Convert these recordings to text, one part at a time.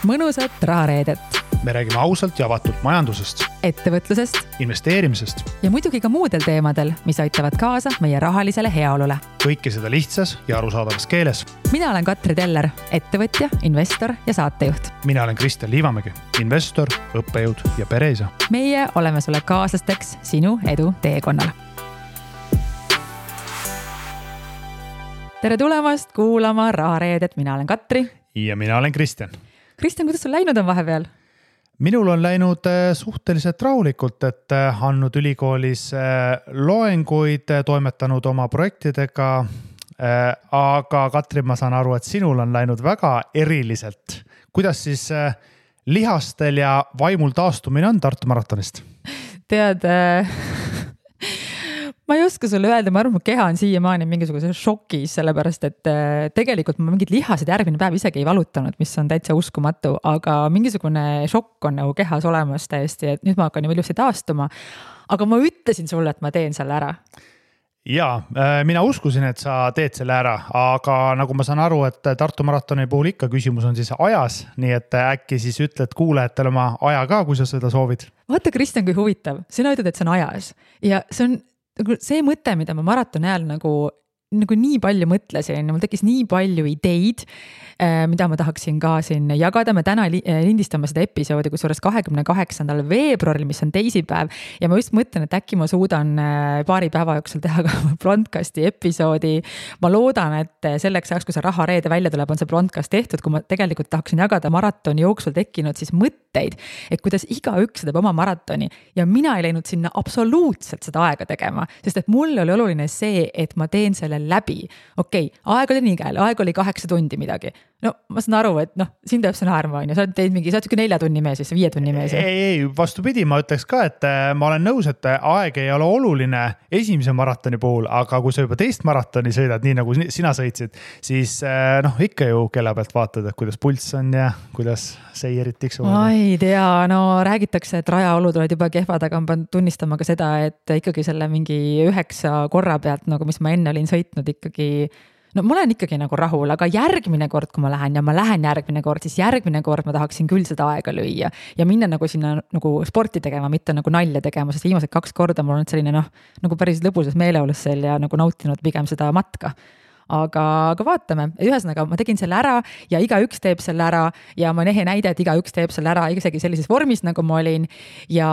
mõnusat rahareedet. Me räägime ausalt ja avatult majandusest, ettevõtlusest investeerimisest ja muidugi ka muudel teemadel, mis aitavad kaasa meie rahalisele heaolule. Kõike seda lihtsas ja arusaadavas keeles. Mina olen Katri Teller, ettevõtja, investor ja saatejuht. Mina olen Kristjan Liivamägi, investor, õppejõud ja pereisa. Meie oleme sulle kaaslasteks sinu edu teekonnal. Tere tulemast kuulama rahareedet. Mina olen Katri. Ja mina olen Kristjan. Kristjan, kuidas sul läinud on vahepeal? Minul on läinud suhteliselt rahulikult, et andnud ülikoolis loenguid, toimetanud oma projektidega, aga Katri, ma saan aru, et sinul on läinud väga eriliselt. Kuidas siis lihastel ja vaimul taastumine on Tartu maratonist? Tead, ma ei oska sulle öelda, ma arvan, mu keha on siiamaani mingisuguse šokis, sellepärast et tegelikult ma mingid lihased järgmine päev isegi ei valutanud, mis on täitsa uskumatu, aga mingisugune šokk on nagu kehas olemas täiesti, et nüüd ma hakkan ju ilusti taastuma. Aga ma ütlesin sulle, et ma teen selle ära. Jaa, mina uskusin, et sa teed selle ära, aga nagu ma saan aru, et Tartu maratoni puhul ikka küsimus on siis ajas, nii et äkki siis ütled kuulajatele oma aja ka, kui sa seda soovid. Vaata, Kristjan, kui huvitav. Sina ütled, et see on ajas ja see mõte, mida ma maratoni ajal nagu nii palju mõtlesin, mul tekkis nii palju ideid, mida ma tahaksin ka siin jagada. Me täna lindistame seda episoodi, kusjuures 28. veebruaril, mis on teisipäev. Ja ma just mõtlen, et äkki ma suudan paari päeva jooksul teha ka broadcasti episoodi. Ma loodan, et selleks ajaks, kui see rahareede välja tuleb, on see broadcast tehtud, kui ma tegelikult tahaksin jagada maratoni jooksul tekkinud siis mõtteid, et kuidas igaüks teeb oma maratoni. Ja mina ei läinud sinna absoluutselt seda aega tegema, sest et mul oli oluline see, et ma teen selle läbi. Okei, aeg oli nii käel, aeg oli 8 tundi midagi. No ma saan aru, et siin teeb see naerma, sa oled mingi 4 tunni mees, 5 tunni mees. Ei, vastupidi, ma ütleks ka, et ma olen nõus, et aeg ei ole oluline esimese maratoni puhul, aga kui sa juba teist maratoni sõidad, nii nagu sina sõitsid, siis ikka ju kella pealt vaatad, et kuidas pulss on ja kuidas seirid tiksuvad. Ma ei tea, räägitakse, et rajaolud olid juba kehvad, aga ma pean tunnistama ka seda, et ikkagi selle mingi 9 korra pealt, nagu mis ma enne olin sõitnud ikkagi, ma olen ikkagi nagu rahul, aga järgmine kord, kui ma lähen järgmine kord, siis järgmine kord ma tahaksin küll seda aega lüüa ja minna nagu sinna nagu sporti tegema, mitte nagu nalja tegema, sest viimased 2 korda mul on selline nagu päris lõbusas meeleolus seal ja nagu nautinud pigem seda matka. Aga vaatame, ühesõnaga ma tegin selle ära ja igaüks teeb selle ära ja ma nehe näide, et igaüks teeb selle ära isegi sellises vormis, nagu ma olin ja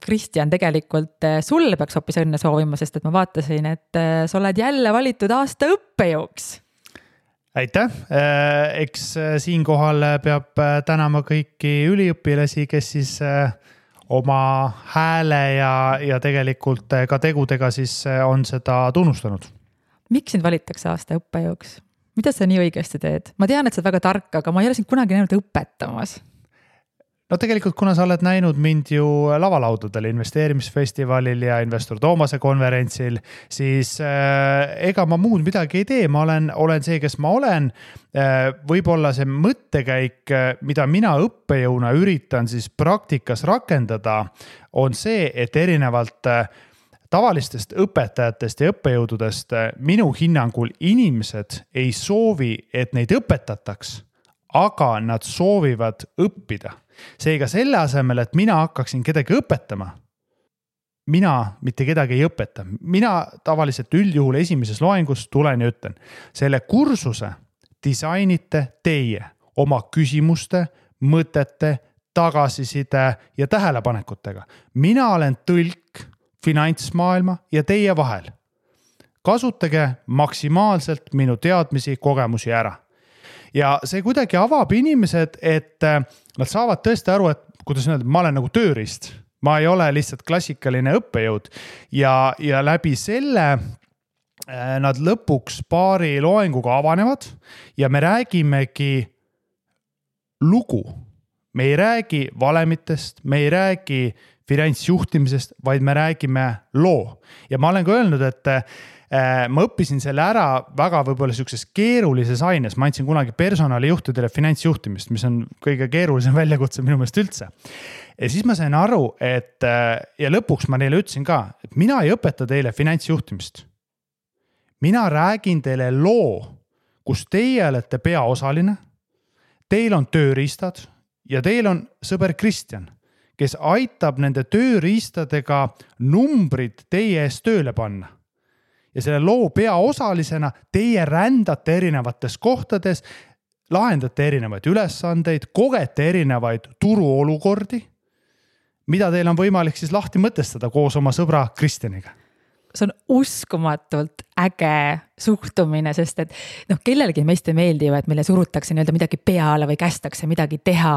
Kristjan, tegelikult sulle peaks hoopis õnne soovima, sest et ma vaatasin, et sa oled jälle valitud aasta õppejõuks. Aitäh, eks siinkohal peab tänama kõiki üliõpilasi, kes siis oma hääle ja tegelikult ka tegudega siis on seda tunnustanud. Miks sind valitakse aasta õppejõuks? Mida sa nii õigesti teed? Ma tean, et sa oled väga tark, aga ma ei ole sind kunagi näinud õpetamas. No tegelikult, kuna sa oled näinud mind ju lavalaudadel, investeerimisfestivalil ja investor Toomase konverentsil, siis ega ma muud midagi ei tee. Ma olen see, kes ma olen. Võib-olla see mõttekäik, mida mina õppejõuna üritan siis praktikas rakendada, on see, et erinevalt tavalistest õpetajatest ja õppejõududest minu hinnangul inimesed ei soovi, et neid õpetataks, aga nad soovivad õppida. Seega selle asemel, et mina hakkaksin kedagi õpetama, mina mitte kedagi ei õpeta. Mina tavaliselt üldjuhul esimeses loengus tulen ja ütlen, selle kursuse disainite teie oma küsimuste, mõtete, tagasiside ja tähelepanekutega. Mina olen tõlk finantsmaailma ja teie vahel. Kasutage maksimaalselt minu teadmisi, kogemusi ära. Ja see kuidagi avab inimesed, et nad saavad tõesti aru, et kuidas öelda, ma olen nagu tööriist. Ma ei ole lihtsalt klassikaline õppejõud ja läbi selle nad lõpuks paari loenguga avanevad ja me räägimegi lugu. Me ei räägi valemitest, me ei räägi finantsjuhtimisest, vaid me räägime loo. Ja ma olen ka öelnud, et ma õppisin selle ära väga võib-olla sellises keerulises aines. Ma andsin kunagi personalijuhtidele finantsjuhtimist, mis on kõige keerulisem väljakutse minu meelest üldse. Ja siis ma sain aru, et ja lõpuks ma neile ütlesin ka, et mina ei õpeta teile finantsjuhtimist. Mina räägin teile loo, kus teie olete peaosaline. teil on tööriistad ja teil on sõber Kristjan, kes aitab nende tööriistadega numbrid teie ees tööle panna. Ja selle loo peaosalisena teie rändate erinevates kohtades, lahendate erinevaid ülesandeid, kogete erinevaid turuolukordi, mida teil on võimalik siis lahti mõtestada koos oma sõbra Kristjaniga. See on uskumatult äge suhtumine, sest et kellelegi meist ei meeldi ju, et meile surutakse nii-öelda midagi peale või kästakse midagi teha.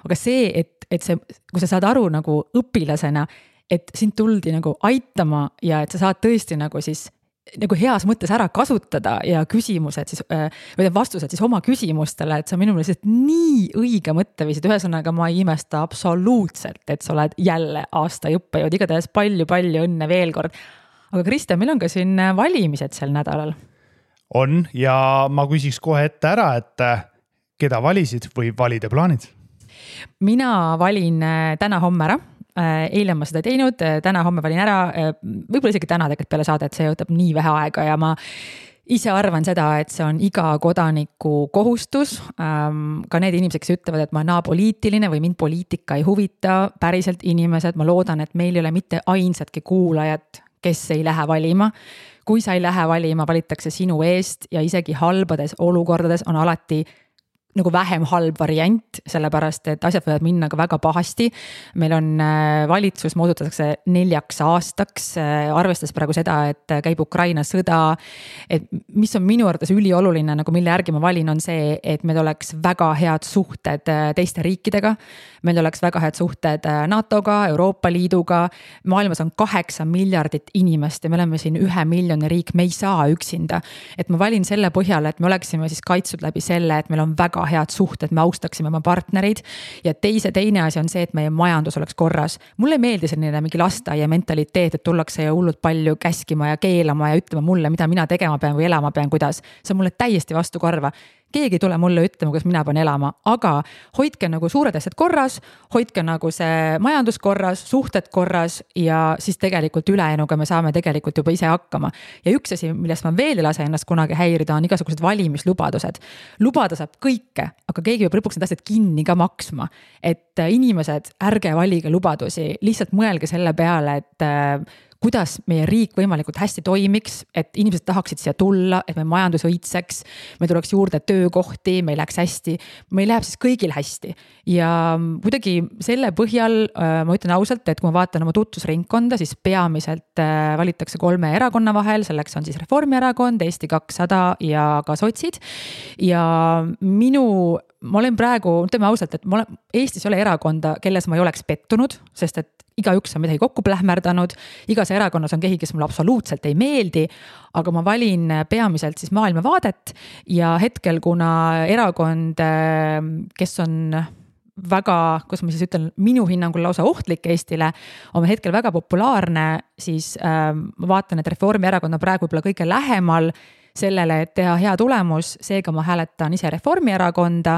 Aga see, et see, kui sa saad aru nagu õpilasena, et sind tuldi nagu aitama ja et sa saad tõesti nagu siis nagu heas mõttes ära kasutada ja küsimused siis, või vastused siis oma küsimustele, et see on minu meelest nii õige mõtteviisid. Ühesõnaga ma ei imesta absoluutselt, et sa oled jälle aasta õppejõud, igatahes palju õnne veel kord. Aga Kristjan, meil on ka siin valimised sel nädalal. On ja ma küsiks kohe ette ära, et keda valisid või valide plaanid? Mina valin täna-homme ära. Eile ma seda teinud, täna-homme valin ära, võib-olla isegi täna tegelikult peale saadet, see võtab nii vähe aega ja ma ise arvan seda, et see on iga kodaniku kohustus. Ka need inimesed, kes ütlevad, et ma olen apoliitiline või mind poliitika ei huvita, päriselt inimesed, ma loodan, et meil ei ole mitte ainsatki kuulajat, kes ei lähe valima. Kui sa ei lähe valima, valitakse sinu eest ja isegi halbades olukordades on alati nagu vähem halb variant, sellepärast, et asjad võivad minna ka väga pahasti. Meil on valitsus moodustatakse 4 aastaks, arvestades praegu seda, et käib Ukraina sõda, et mis on minu arvates ülioluline, nagu mille järgi ma valin, on see, et meil oleks väga head suhted teiste riikidega, meil oleks väga head suhted NATO-ga, Euroopa Liiduga, maailmas on 8 miljardit inimest ja me oleme siin 1 miljoni riik, me ei saa üksinda. Et ma valin selle põhjal, et me oleksime siis kaitstud läbi selle, et meil on väga head suhted, me austaksime oma partnerid ja teine asi on see, et meie majandus oleks korras. Mulle ei meeldi selline mingi lasteaia mentaliteet, et tullakse ja hullult palju käskima ja keelama ja ütlema mulle, mida mina tegema pean või elama pean, kuidas. See on mulle täiesti vastu korva. Keegi tule mulle ütlema, kuidas mina pean elama, aga hoidke nagu suured asjad korras, hoidke nagu see majandus korras, suhted korras ja siis tegelikult ülejäänuga me saame tegelikult juba ise hakkama. Ja üks asi, millest ma veel ei lase ennast kunagi häirida, on igasugused valimislubadused. Lubada saab kõike, aga keegi peab lõpuks need asjad kinni ka maksma. Et inimesed, ärge valige lubadusi, lihtsalt mõelge selle peale, et kuidas meie riik võimalikult hästi toimiks, et inimesed tahaksid siia tulla, et meie majandus õitseks, me tuleks juurde töökohti, meil läheks hästi, meil läheb siis kõigil hästi. Ja kuidagi selle põhjal ma ütlen ausalt, et kui ma vaatan oma tutvusringkonda, siis peamiselt valitakse 3 erakonna vahel, selleks on siis Reformierakond, Eesti 200 ja ka sotsid. Ja ma olen praegu, ütleme ausalt, et Eestis ei ole erakonda, kelles ma ei oleks pettunud, sest et igaüks on midagi kokku plähmerdanud, igas erakonnas on keegi, kes mulle absoluutselt ei meeldi, aga ma valin peamiselt siis maailmavaadet ja hetkel, kuna erakond, kes on väga, kus ma siis ütlen, minu hinnangul lausa ohtlik Eestile, on hetkel väga populaarne, siis ma vaatan, et Reformierakond on praegu võib-olla kõige lähemal sellele, et teha hea tulemus, seega ma hääletan ise Reformierakonda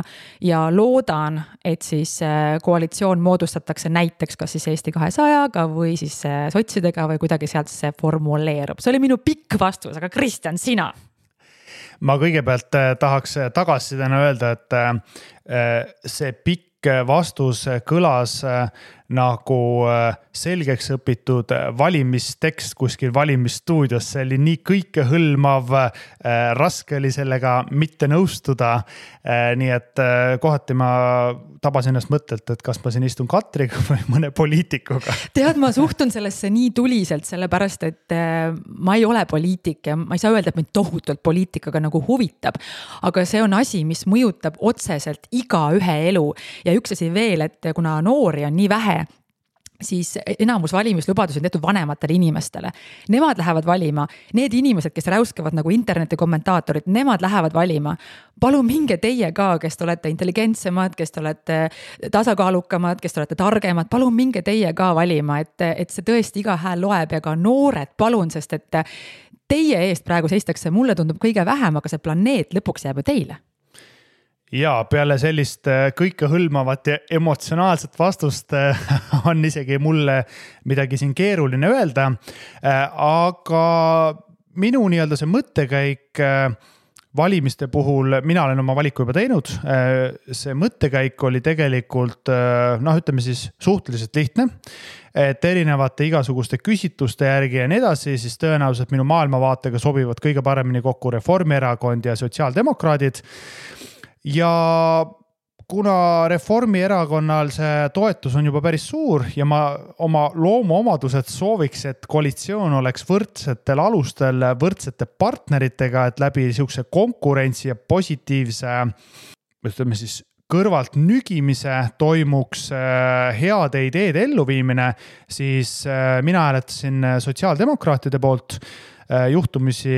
ja loodan, et siis koalitsioon moodustatakse näiteks kas siis Eesti 200-ga või siis sotsidega või kuidagi sealt see formuleerub. See oli minu pikk vastus, aga Kristjan, sina? Ma kõigepealt tahaks tagasisidena öelda, et see pikk vastus kõlas nagu selgeks õpitud valimistekst kuskil valimisstuudios. See oli nii kõikehõlmav, raske oli sellega mitte nõustuda. Nii et kohati ma tabasin ennast mõttelt, et kas ma siin istun Katriga või mõne poliitikuga. Tead, ma suhtun sellesse nii tuliselt, sellepärast, et ma ei ole poliitik ja ma ei saa öelda, et mind tohutult poliitikaga nagu huvitab. Aga see on asi, mis mõjutab otseselt iga ühe elu. Ja üks asi veel, et kuna noori on nii vähe, siis enamus valimislubadusi on tehtud vanematele inimestele. Nemad lähevad valima. Need inimesed, kes räuskavad nagu interneti kommentaatorid, nemad lähevad valima. Palun minge teie ka, kes te olete intelligentsemad, kes te olete tasakaalukamad, kes te olete targemad. Palun minge teie ka valima, et see tõesti iga hääl loeb ja ka noored palun, sest et teie eest praegu seistakse, mulle tundub kõige vähem, aga see planeet lõpuks jääb ju teile. Ja peale sellist kõikehõlmavat ja emotsionaalset vastust on isegi mulle midagi siin keeruline öelda. Aga minu nii-öelda see mõttekäik valimiste puhul mina olen oma valiku juba teinud. See mõttekäik oli tegelikult, ütleme siis suhteliselt lihtne, et erinevate igasuguste küsitluste järgi ja nii edasi, siis tõenäoliselt minu maailmavaatega sobivad kõige paremini kokku Reformierakond ja sotsiaaldemokraadid. Ja kuna Reformierakonnal see toetus on juba päris suur ja ma oma loomuomadused sooviks, et koalitsioon oleks võrdsetel alustel, võrdsete partneritega, et läbi niisuguse konkurentsi ja positiivse, ütleme siis, kõrvalt nügimise toimuks heade ideede elluviimine, siis mina hääletasin sotsiaaldemokraatide poolt. Juhtumisi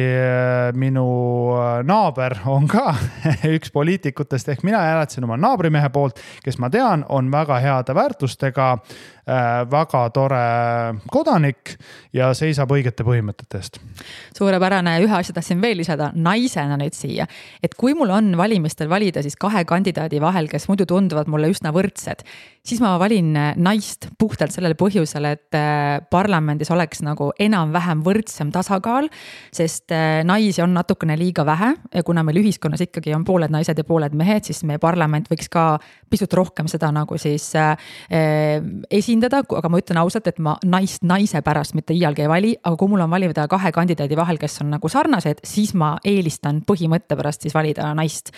minu naaber on ka üks poliitikutest, ehk mina hääletasin oma naabrimehe poolt, kes ma tean, on väga heade väärtustega, väga tore kodanik ja seisab õigete põhimõtete eest. Suurepärane, ühe asja tahtsin veel lisada naisena nüüd siia, et kui mul on valimistel valida siis 2 kandidaadi vahel, kes muidu tunduvad mulle üsna võrdsed, siis ma valin naist puhtalt sellele põhjusel, et parlamendis oleks nagu enam-vähem võrdsem tasakaal, sest naisi on natukene liiga vähe ja kuna meil ühiskonnas ikkagi on pooled naised ja pooled mehed, siis meie parlament võiks ka pisut rohkem seda nagu siis esindada, aga ma ütlen ausalt, et ma naist naise pärast mitte iialgi ei vali, aga kui mul on valida 2 kandidaadi vahel, kes on nagu sarnased, siis ma eelistan põhimõtte pärast siis valida naist.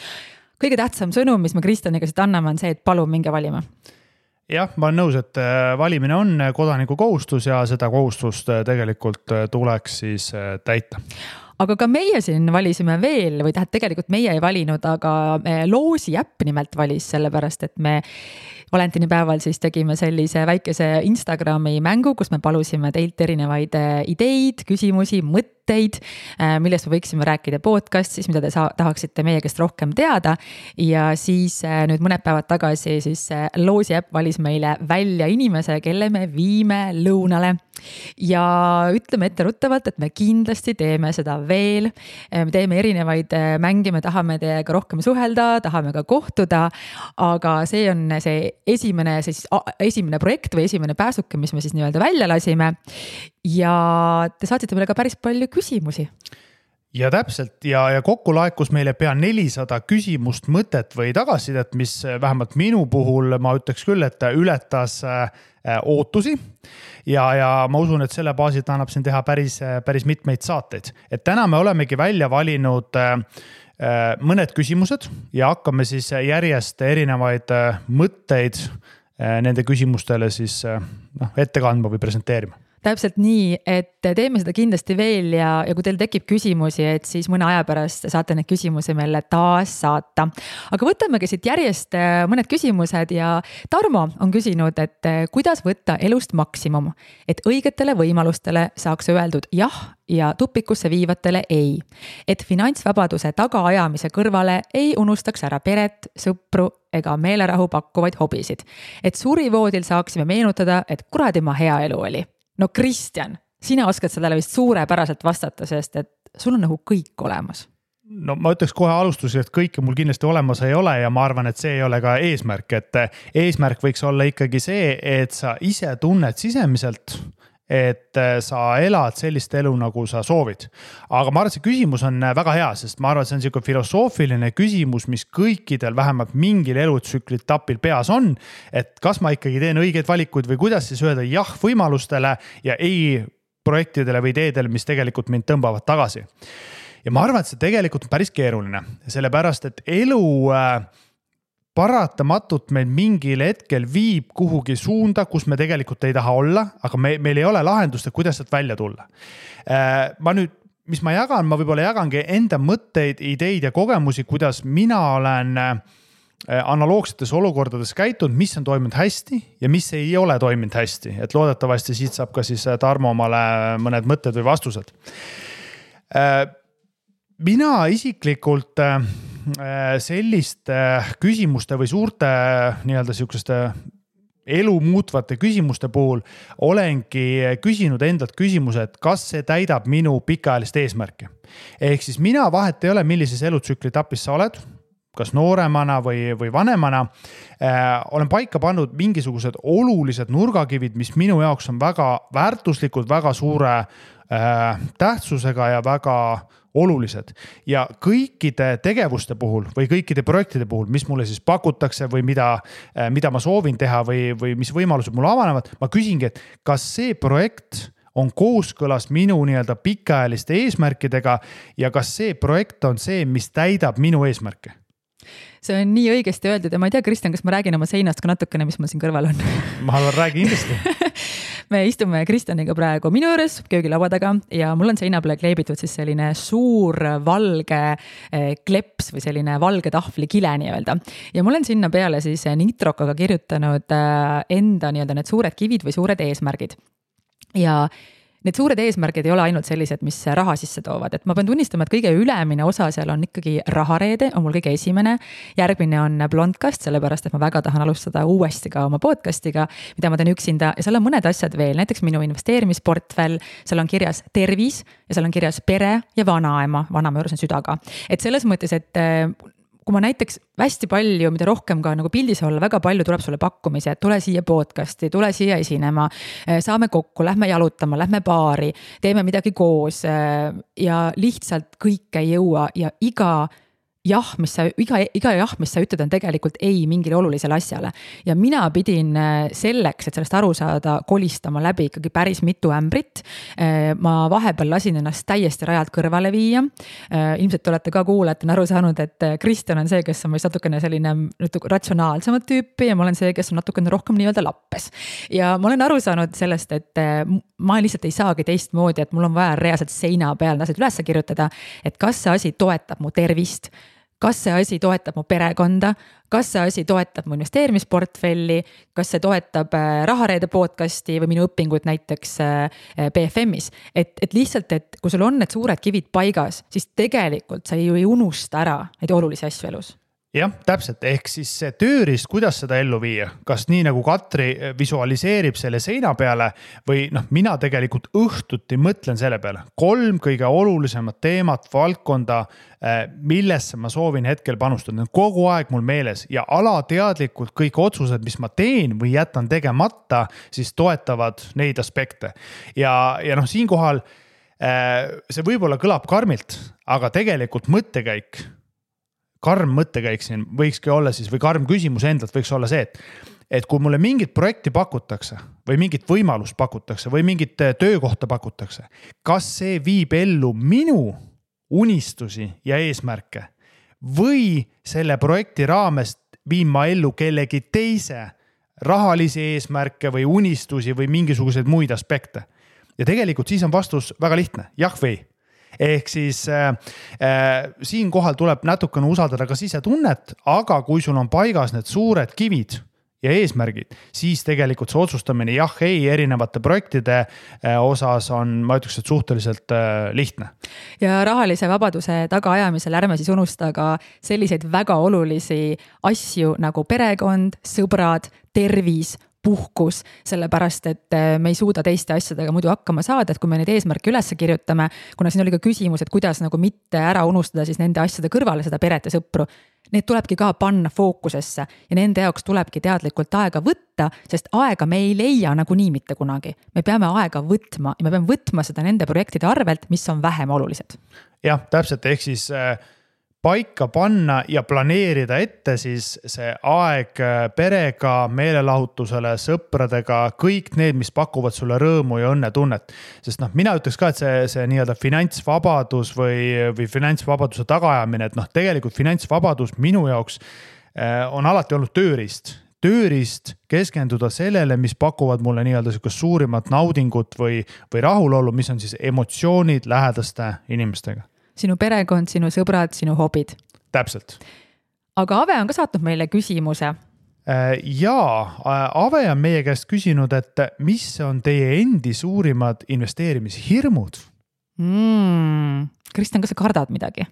Kõige tähtsam sõnum, mis me Kristjaniga siit anname, on see, et palun minge valima. Jah, ma olen nõus, et valimine on kodaniku kohustus ja seda kohustust tegelikult tuleks siis täita. Aga ka meie siin valisime veel, või tegelikult meie ei valinud, aga Loosi äpp nimelt valis sellepärast, et me valentinipäeval siis tegime sellise väikese Instagrami mängu, kus me palusime teilt erinevaid ideid, küsimusi, mõtteid, millest me võiksime rääkida podcastis, mida te tahaksite meie käest rohkem teada. Ja siis nüüd mõned päevad tagasi siis Loosi äpp valis meile välja inimese, kelle me viime lõunale. Ja ütleme etteruttavalt, et me kindlasti teeme seda veel. Me teeme erinevaid mänge, me tahame teiega rohkem suhelda, tahame ka kohtuda, aga see on see esimene projekt või esimene pääsuke, mis me siis nii-öelda välja lasime. Ja te saatsite meile ka päris palju küsimusi. Ja täpselt ja kokku laekus meile pea 400 küsimust, mõtet või tagasisidet, mis vähemalt minu puhul ma ütleks küll, et ületas ootusi ja ma usun, et selle baasil annab siin teha päris mitmeid saateid. Et täna me olemegi välja valinud mõned küsimused ja hakkame siis järjest erinevaid mõtteid nende küsimustele siis ette kandma või presenteerima. Täpselt nii, et teeme seda kindlasti veel ja kui teil tekib küsimusi, et siis mõne aja pärast saate need küsimusi meile taas saata. Aga võtamegi siit järjest mõned küsimused ja Tarmo on küsinud, et kuidas võtta elust maksimum, et õigetele võimalustele saaks öeldud jah ja tupikusse viivatele ei. Et finantsvabaduse tagaajamise kõrvale ei unustaks ära peret, sõpru ega meelerahu pakkuvaid hobisid. Et surivoodil saaksime meenutada, et kuradi ma hea elu oli. No Kristjan, sina oskad sellele vist suurepäraselt vastata, sest et sul on nagu kõik olemas. No ma ütleks kohe alustusel, et kõike mul kindlasti olemas ei ole ja ma arvan, et see ei ole ka eesmärk, et eesmärk võiks olla ikkagi see, et sa ise tunned sisemiselt, et sa elad sellist elu, nagu sa soovid. Aga ma arvan, et see küsimus on väga hea, sest ma arvan, et see on selline filosoofiline küsimus, mis kõikidel vähemalt mingil elutsükli etapil peas on, et kas ma ikkagi teen õigeid valikuid või kuidas siis öelda jah võimalustele ja ei projektidele või ideedele, mis tegelikult mind tõmbavad tagasi. Ja ma arvan, et see tegelikult on päris keeruline, sellepärast, et elu paratamatult meil mingil hetkel viib kuhugi suunda, kus me tegelikult ei taha olla, aga meil ei ole lahendust, kuidas sealt välja tulla. Ma nüüd, mis ma jagan, ma võib-olla jagangi enda mõtteid, ideid ja kogemusi, kuidas mina olen analoogsetes olukordades käitunud, mis on toiminud hästi ja mis ei ole toiminud hästi. Et loodetavasti siit saab ka siis Tarmo omale mõned mõtted või vastused. Mina isiklikult selliste küsimuste või suurte nii-öelda sihukeste elu muutvate küsimuste puhul olengi küsinud endalt küsimuse, et kas see täidab minu pikaajalist eesmärki. Ehk siis mina vahet ei ole, millises elutsükli etapis sa oled, kas nooremana või vanemana, olen paika pannud mingisugused olulised nurgakivid, mis minu jaoks on väga väärtuslikud, väga suure tähtsusega ja väga olulised. Ja kõikide tegevuste puhul või kõikide projektide puhul, mis mulle siis pakutakse või mida ma soovin teha või mis võimalused mulle avanevad, ma küsingi, et kas see projekt on kooskõlas minu nii-öelda pikaajaliste eesmärkidega ja kas see projekt on see, mis täidab minu eesmärke? See on nii õigesti öeldud ja ma ei tea, Kristjan, kas ma räägin oma seinast ka natukene, mis mul siin kõrval on? Ma räägin kindlasti. Me istume Kristjaniga praegu minu juures köögilaua taga ja mul on seina peale kleebitud siis selline suur valge kleps või selline valge tahvli kile nii-öelda. Ja mul on sinna peale siis nitrokaga kirjutanud enda nii-öelda need suured kivid või suured eesmärgid. Ja need suured eesmärgid ei ole ainult sellised, mis raha sisse toovad, et ma pean tunnistama, et kõige ülemine osa seal on ikkagi rahareede, on mul kõige esimene, järgmine on blondcast, sellepärast, et ma väga tahan alustada uuesti ka oma podcastiga, mida ma teen üksinda ja seal on mõned asjad veel, näiteks minu investeerimisportfell, seal on kirjas tervis ja seal on kirjas pere ja vanaema juures on südaga. Et selles mõttes, et kui ma näiteks hästi palju, mida rohkem ka nagu pildis olla, väga palju tuleb sulle pakkumise, et tule siia podcasti, tule siia esinema, saame kokku, lähme jalutama, lähme baari, teeme midagi koos ja lihtsalt kõike ei jõua ja iga jah, mis sa ütled, on tegelikult ei mingile olulisele asjale. Ja mina pidin selleks, et sellest aru saada, kolistama läbi ikkagi päris mitu ämbrit. Ma vahepeal lasin ennast täiesti rajalt kõrvale viia. Ilmselt olete ka kuulajatena aru saanud, et Kristjan on see, kes on meist natukene selline ratsionaalsemat tüüpi ja ma olen see, kes on natukene rohkem nii-öelda lappes. Ja ma olen aru saanud sellest, et ma lihtsalt ei saagi teistmoodi, et mul on vaja reaalselt seina peal asjad üles kirjutada, et kas see asi toetab mu tervist, kas see asi toetab mu perekonda, kas see asi toetab mu investeerimisportfelli, kas see toetab rahareede podcasti või minu õpingut näiteks BFM-is. Et lihtsalt, et kui sul on need suured kivid paigas, siis tegelikult sa ju ei unusta ära neid olulisi asju elus. Jah, täpselt, ehk siis see tööriist, kuidas seda ellu viia, kas nii nagu Katri visualiseerib selle seina peale või mina tegelikult õhtuti mõtlen selle peale. 3 kõige olulisemat teemat, valdkonda, millesse ma soovin hetkel panustada. Kogu aeg mul meeles ja alateadlikult kõik otsused, mis ma teen või jätan tegemata, siis toetavad neid aspekte. Ja siinkohal see võib-olla kõlab karmilt, aga tegelikult karm mõttekäik siin võikski olla siis, või karm küsimus endalt võiks olla see, et kui mulle mingit projekti pakutakse või mingit võimalust pakutakse või mingit töökohta pakutakse, kas see viib ellu minu unistusi ja eesmärke või selle projekti raamest viin ma ellu kellegi teise rahalisi eesmärke või unistusi või mingisuguseid muid aspekte. Ja tegelikult siis on vastus väga lihtne, jah või ei. Ehk siis siin kohal tuleb natukene usaldada ka sisetunnet, aga kui sul on paigas need suured kivid ja eesmärgid, siis tegelikult see otsustamine jah, ei erinevate projektide osas on, ma ütleks, et suhteliselt lihtne. Ja rahalise vabaduse tagaajamisel ärme siis unusta ka selliseid väga olulisi asju nagu perekond, sõbrad, tervis, puhkus, sellepärast, et me ei suuda teiste asjadega muidu hakkama saada, et kui me neid eesmärke üles kirjutame, kuna siin oli ka küsimus, et kuidas nagu mitte ära unustada siis nende asjade kõrvale seda peret ja sõpru, need tulebki ka panna fookusesse ja nende jaoks tulebki teadlikult aega võtta, sest aega me ei leia nagunii mitte kunagi. Me peame aega võtma ja me peame võtma seda nende projektide arvelt, mis on vähem olulised. Jah, täpselt, ehk siis paika panna ja planeerida ette siis see aeg perega, meelelahutusele, sõpradega, kõik need, mis pakuvad sulle rõõmu ja õnnetunnet. Sest mina ütleks ka, et see nii-öelda finantsvabadus või finantsvabaduse tagaajamine, et tegelikult finantsvabadus minu jaoks on alati olnud tööriist keskenduda sellele, mis pakuvad mulle nii-öelda suurimat naudingut või rahulolu, mis on siis emotsioonid lähedaste inimestega. Sinu perekond, sinu sõbrad, sinu hobid. Täpselt. Aga Ave on ka saatnud meile küsimuse. Jaa, Ave on meie käest küsinud, et mis on teie endi suurimad investeerimishirmud? Kristjan, kas sa kardad midagi?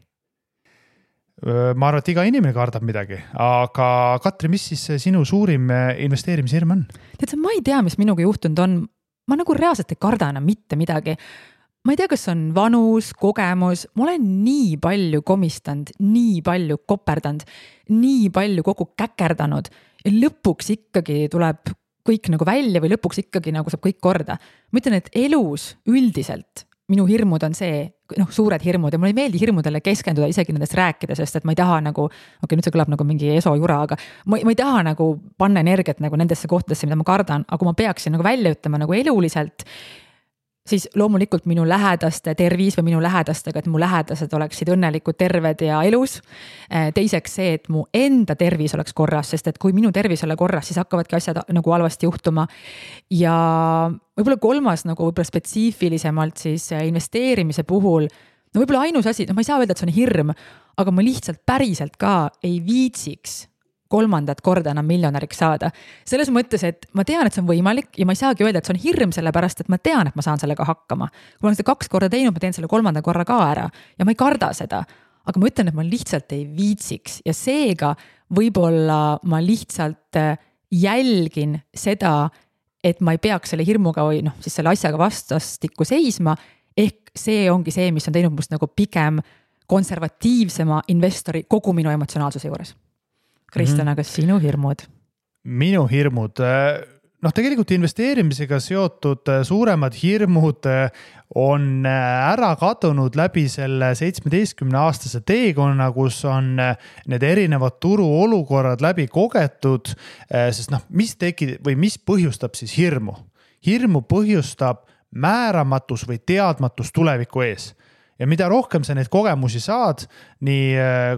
Ma arvan, et iga inimene kardab midagi, aga Katri, mis siis sinu suurim investeerimishirm on? Tead sa, ma ei tea, mis minuga juhtunud on. Ma nagu reaalselt ei karda enam mitte midagi. ma ei tea, kas on vanus, kogemus, ma olen nii palju komistanud, nii palju koperdanud, nii palju kogu käkerdanud ja lõpuks ikkagi tuleb kõik nagu välja või lõpuks ikkagi nagu saab kõik korda. Ma ütlen, et elus üldiselt minu hirmud on see, suured hirmud ja mulle ei meeldi hirmudele keskenduda isegi nendest rääkida, sest et ma ei taha nagu, nüüd see kõlab nagu mingi esojura, aga ma ei taha nagu panna energiat nagu nendesse kohtadesse, mida ma kardan, aga kui ma peaksin nagu välja ütlema nagu eluliselt, siis loomulikult minu lähedaste tervis või minu lähedastega, et mu lähedased oleksid õnnelikud, terved ja elus. Teiseks see, et mu enda tervis oleks korras, sest et kui minu tervis ole korras, siis hakkavadki asjad nagu halvasti juhtuma. Ja võib-olla kolmas nagu võib-olla spetsiifilisemalt siis investeerimise puhul, võib-olla ainus asi, ma ei saa öelda, et see on hirm, aga ma lihtsalt päriselt ka ei viitsiks kolmandat korda enam miljonäriks saada. Selles mõttes, et ma tean, et see on võimalik ja ma ei saagi öelda, et see on hirm sellepärast, et ma tean, et ma saan sellega hakkama. Kui ma olen seda 2 korda teinud, ma teen selle 3. korra ka ära ja ma ei karda seda. Aga ma ütlen, et ma lihtsalt ei viitsiks ja seega võib-olla ma lihtsalt jälgin seda, et ma ei peaks selle hirmuga või siis selle asjaga vastastikku seisma. Ehk see ongi see, mis on teinud must nagu pigem konservatiivsema investori kogu minu emotsionaalsuse juures. Kristjan, aga sinu hirmud? Minu hirmud, tegelikult investeerimisega seotud suuremad hirmud on ära kadunud läbi selle 17-aastase teekonna, kus on need erinevad turuolukorrad läbi kogetud, sest mis põhjustab siis hirmu? Hirmu põhjustab määramatus või teadmatus tuleviku ees. Ja mida rohkem sa neid kogemusi saad, nii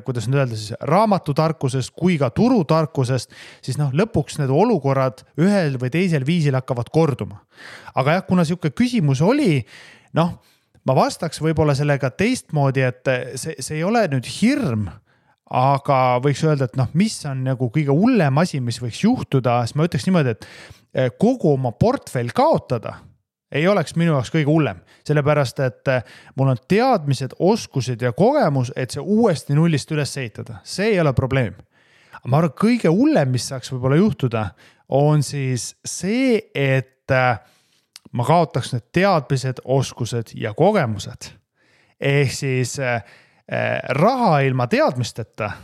kuidas nüüd öelda siis raamatutarkusest kui ka turutarkusest, siis lõpuks need olukorrad ühel või teisel viisil hakkavad korduma. Aga jah, kuna siuke küsimus oli, ma vastaks võib-olla sellega teistmoodi, et see ei ole nüüd hirm, aga võiks öelda, et mis on nagu kõige hullem asi, mis võiks juhtuda, siis ma ütleks niimoodi, et kogu oma portfell kaotada ei oleks minu jaoks kõige hullem, sellepärast, et mul on teadmised, oskused ja kogemus, et see uuesti nullist üles ehitada. See ei ole probleem. Ma arvan, kõige hullem, mis saaks võib-olla juhtuda, on siis see, et ma kaotaks need teadmised, oskused ja kogemused. Ehk siis raha ilma teadmisteta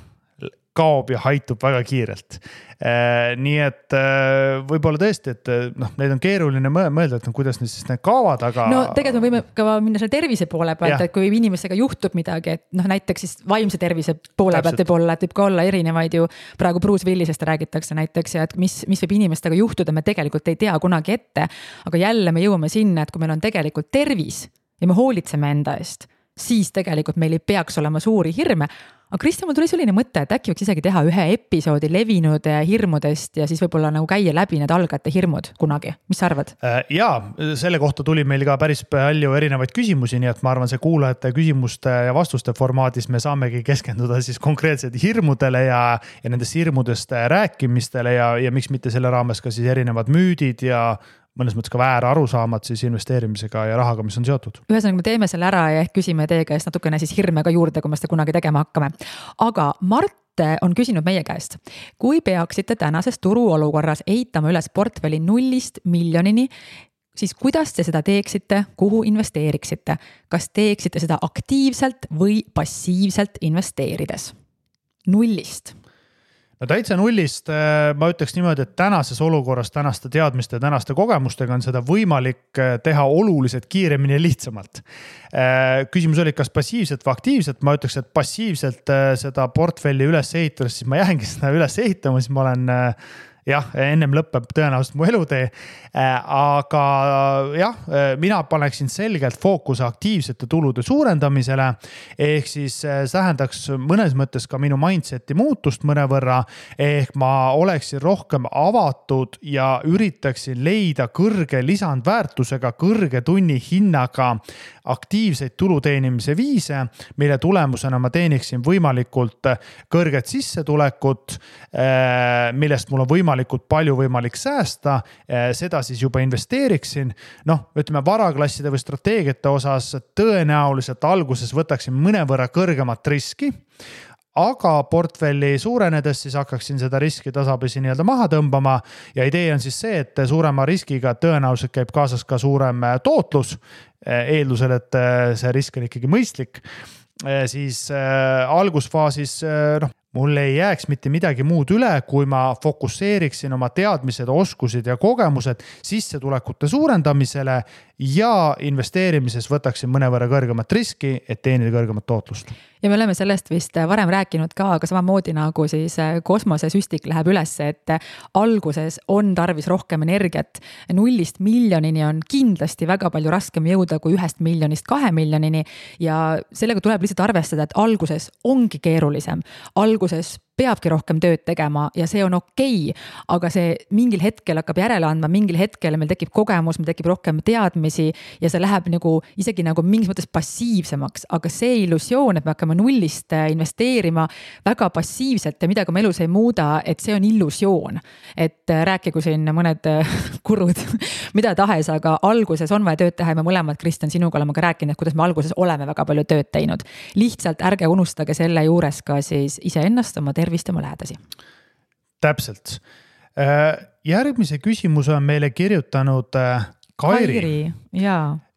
kaob ja haitub väga kiirelt. Nii et võib-olla tõesti, et neid on keeruline mõelda, et kuidas need kaovad, aga... Tegelikult me võime ka minna selle tervise poole pealt, et kui inimesega juhtub midagi, et näiteks siis vaimse tervise poole pealt võib ka olla erinevaid ju, praegu Bruce Willisest räägitakse näiteks, ja et mis võib inimestega juhtuda, me tegelikult ei tea kunagi ette, aga jälle me jõuame sinna, et kui meil on tegelikult tervis ja me hoolitseme enda eest, siis tegelikult meil ei peaks olema suuri hirme. Aga Kristjan, mul tuli selline mõte, et äkki võiks isegi teha ühe episoodi levinud hirmudest ja siis võib-olla nagu käia läbi need algajate hirmud kunagi. Mis sa arvad? Jaa, selle kohta tuli meil ka päris palju erinevaid küsimusi, nii et ma arvan, see kuulajate küsimuste ja vastuste formaadis me saamegi keskenduda siis konkreetselt hirmudele ja nendest hirmudest rääkimistele ja miks mitte selle raames ka siis erinevad müüdid ja mõnes mõttes ka väär arusaamad siis investeerimisega ja rahaga, mis on seotud. Ühesõnaga, me teeme selle ära ja küsime teie käest natukene siis hirme ka juurde, kui me seda kunagi tegema hakkame. Aga Mart on küsinud meie käest, kui peaksite tänases turuolukorras ehitama üles portfelli 0 miljonini, siis kuidas te seda teeksite, kuhu investeeriksite? Kas teeksite seda aktiivselt või passiivselt investeerides? 0. Täitsa 0, ma ütleks niimoodi, et tänases olukorras, tänaste teadmiste ja tänaste kogemustega on seda võimalik teha oluliselt kiiremini ja lihtsamalt. Küsimus oli, kas passiivselt või aktiivselt, ma ütleks, et passiivselt seda portfelli üles ehitades, siis ma jäängi seda üles ehitama, siis ma olen... Jah, ennem lõpeb tõenäoliselt mu elutee, aga jah, mina paneksin selgelt fookuse aktiivsete tulude suurendamisele, ehk siis tähendaks mõnes mõttes ka minu mindseti muutust mõnevõrra, ehk ma oleksin rohkem avatud ja üritaksin leida kõrge lisandväärtusega, kõrge tunni hinnaga aktiivseid tuluteenimise viise, mille tulemusena ma teeniksin võimalikult kõrget sissetulekut, millest mul on võimalikult palju võimalik säästa, seda siis juba investeeriksin. Ütleme varaklasside või strateegiate osas tõenäoliselt alguses võtaksin mõnevõrra kõrgemat riski, aga portfelli suurenedes siis hakkaksin seda riski tasapisi nii-öelda maha tõmbama ja idee on siis see, et suurema riskiga tõenäoliselt käib kaasas ka suurem tootlus, eeldusel, et see risk on ikkagi mõistlik, siis algusfaasis mul ei jääks mitte midagi muud üle, kui ma fokusseeriksin oma teadmised, oskused ja kogemused sissetulekute suurendamisele ja investeerimises võtaksin mõnevõrra kõrgemat riski, et teenida kõrgemat tootlust. Ja me oleme sellest vist varem rääkinud ka, aga samamoodi nagu siis kosmosesüstik läheb üles, et alguses on tarvis rohkem energiat. 0 miljonini on kindlasti väga palju raskem jõuda kui 1 miljonist 2 miljonini ja sellega tuleb lihtsalt arvestada, et alguses ongi keerulisem. Alguses peabki rohkem tööd tegema ja see on okei, aga see mingil hetkel hakkab järele andma, mingil hetkel meil tekib kogemus, meil tekib rohkem teadmisi ja see läheb isegi mingis mõttes passiivsemaks, aga see illusioon, et me hakkame nullist investeerima väga passiivselt ja midagi oma elus ei muuda, et see on illusioon. Et rääkigu siin mõned kurud, mida tahes, aga alguses on vaja tööd teha ja me mõlemad, Kristjan, sinuga oleme ka rääkinud, kuidas me alguses oleme väga palju tööd teinud. Lihtsalt ärge unustage selle juures ka siis iseennast, oma tervist ja oma lähedasi. Täpselt. Järgmise küsimuse on meile kirjutanud Kairi.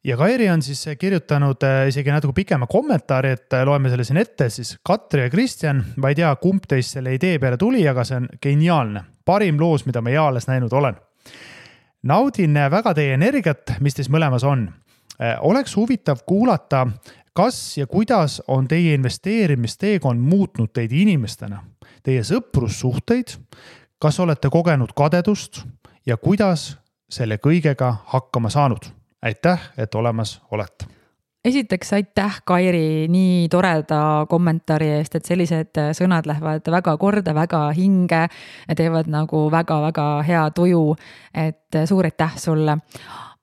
Ja Kairi on siis kirjutanud isegi natuke pikema kommentaari, et loeme selle siin ette, siis Katri ja Kristjan, ma ei tea, kumb teist selle idee peale tuli, aga see on geniaalne. Parim loos, mida ma eales näinud olen. Naudin väga teie energiat, mis teis mõlemas on. Oleks huvitav kuulata, kas ja kuidas on teie investeerimisteekond muutnud teid inimestena, teie sõprussuhteid, kas olete kogenud kadedust ja kuidas selle kõigega hakkama saanud? Aitäh, et olemas olete. Esiteks aitäh, Kairi, nii toreda kommentaari eest, et sellised sõnad lähevad väga korda, väga hinge, teevad väga-väga hea tuju, et suur aitäh sulle.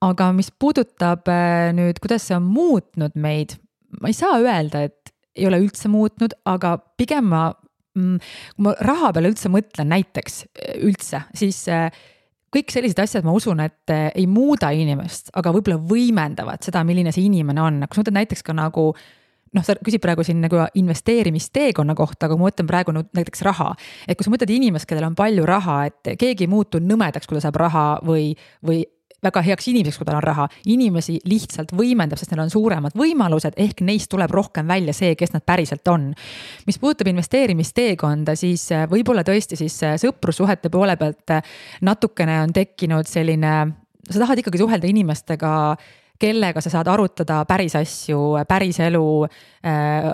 Aga mis puudutab nüüd, kuidas see on muutnud meid, ma ei saa öelda, et ei ole üldse muutnud, aga pigem kui ma raha peale üldse mõtlen näiteks üldse, siis kõik sellised asjad ma usun, et ei muuda inimest, aga võib-olla võimendavad seda, milline see inimene on. Kui sa mõtled näiteks ka sa küsid praegu siin investeerimisteekonna kohta, aga ma mõtlen praegu näiteks raha. Et kui sa mõtled inimest, kellel on palju raha, et keegi ei muutu nõmedaks, kui ta saab raha või väga heaks inimeseks, kui tal on raha. Inimesi lihtsalt võimendab, sest neil on suuremad võimalused, ehk neist tuleb rohkem välja see, kes nad päriselt on. Mis puudutab investeerimisteekonda, siis võib-olla tõesti siis sõprussuhete poole pealt natukene on tekkinud selline, sa tahad ikkagi suhelda inimestega, kellega sa saad arutada päris asju, päris elu,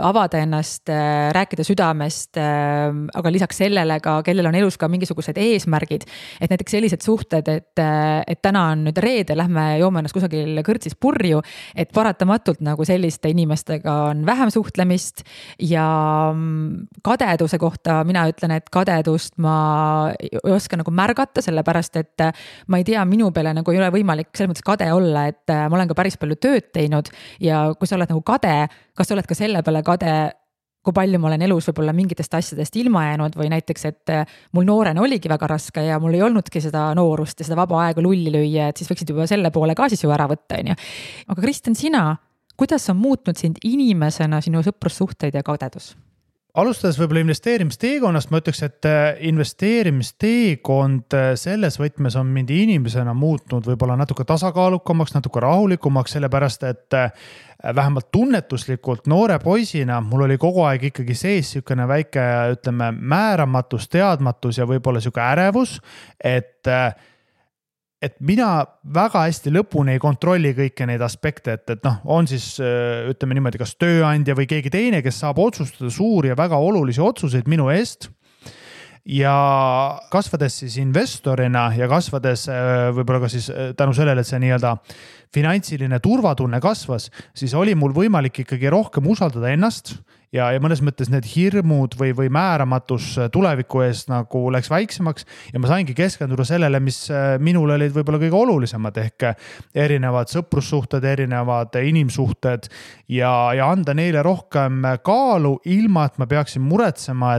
avada ennast, rääkida südamest, aga lisaks sellele ka, kellel on elus ka mingisugused eesmärgid, et näiteks sellised suhted, et täna on nüüd reede, lähme joome ennast kusagil kõrtsis purju, et paratamatult selliste inimestega on vähem suhtlemist ja kadeduse kohta mina ütlen, et kadedust ma ei oska märgata, sellepärast, et ma ei tea, minu peale ei ole võimalik selles mõttes kade olla, et ma olen ka päris palju tööd teinud ja kui sa oled kade, kas sa oled ka selle peale kade, kui palju ma olen elus võib-olla mingitest asjadest ilma jäänud või näiteks, et mul noorena oligi väga raske ja mul ei olnudki seda noorust ja seda vaba aega lulli lüüa, et siis võiksid juba selle poole ka siis ju ära võtta. Aga Kristjan, sina, kuidas on muutnud sind inimesena sinu sõprussuhteid ja kadedus? Alustades võib-olla investeerimisteekonnast, ma ütleks, et investeerimisteekond selles võtmes on mind inimesena muutnud võib-olla natuke tasakaalukamaks, natuke rahulikumaks, sellepärast, et vähemalt tunnetuslikult noore poisina mul oli kogu aeg ikkagi sees niisugune väike, ütleme, määramatus, teadmatus ja võib-olla niisugune ärevus, et mina väga hästi lõpuni ei kontrolli kõiki neid aspekte, et on siis, ütleme niimoodi, kas tööandja või keegi teine, kes saab otsustada suuri ja väga olulisi otsuseid minu eest. Ja kasvades siis investorina ja kasvades võib-olla ka siis tänu sellele, et see nii-öelda finantsiline turvatunne kasvas, siis oli mul võimalik ikkagi rohkem usaldada ennast ja mõnes mõttes need hirmud või määramatus tuleviku eest läks väiksemaks ja ma saingi keskenduda sellele, mis minul olid võib-olla kõige olulisemad ehk erinevad sõprussuhted, erinevad inimsuhted ja anda neile rohkem kaalu, ilma et ma peaksin muretsema,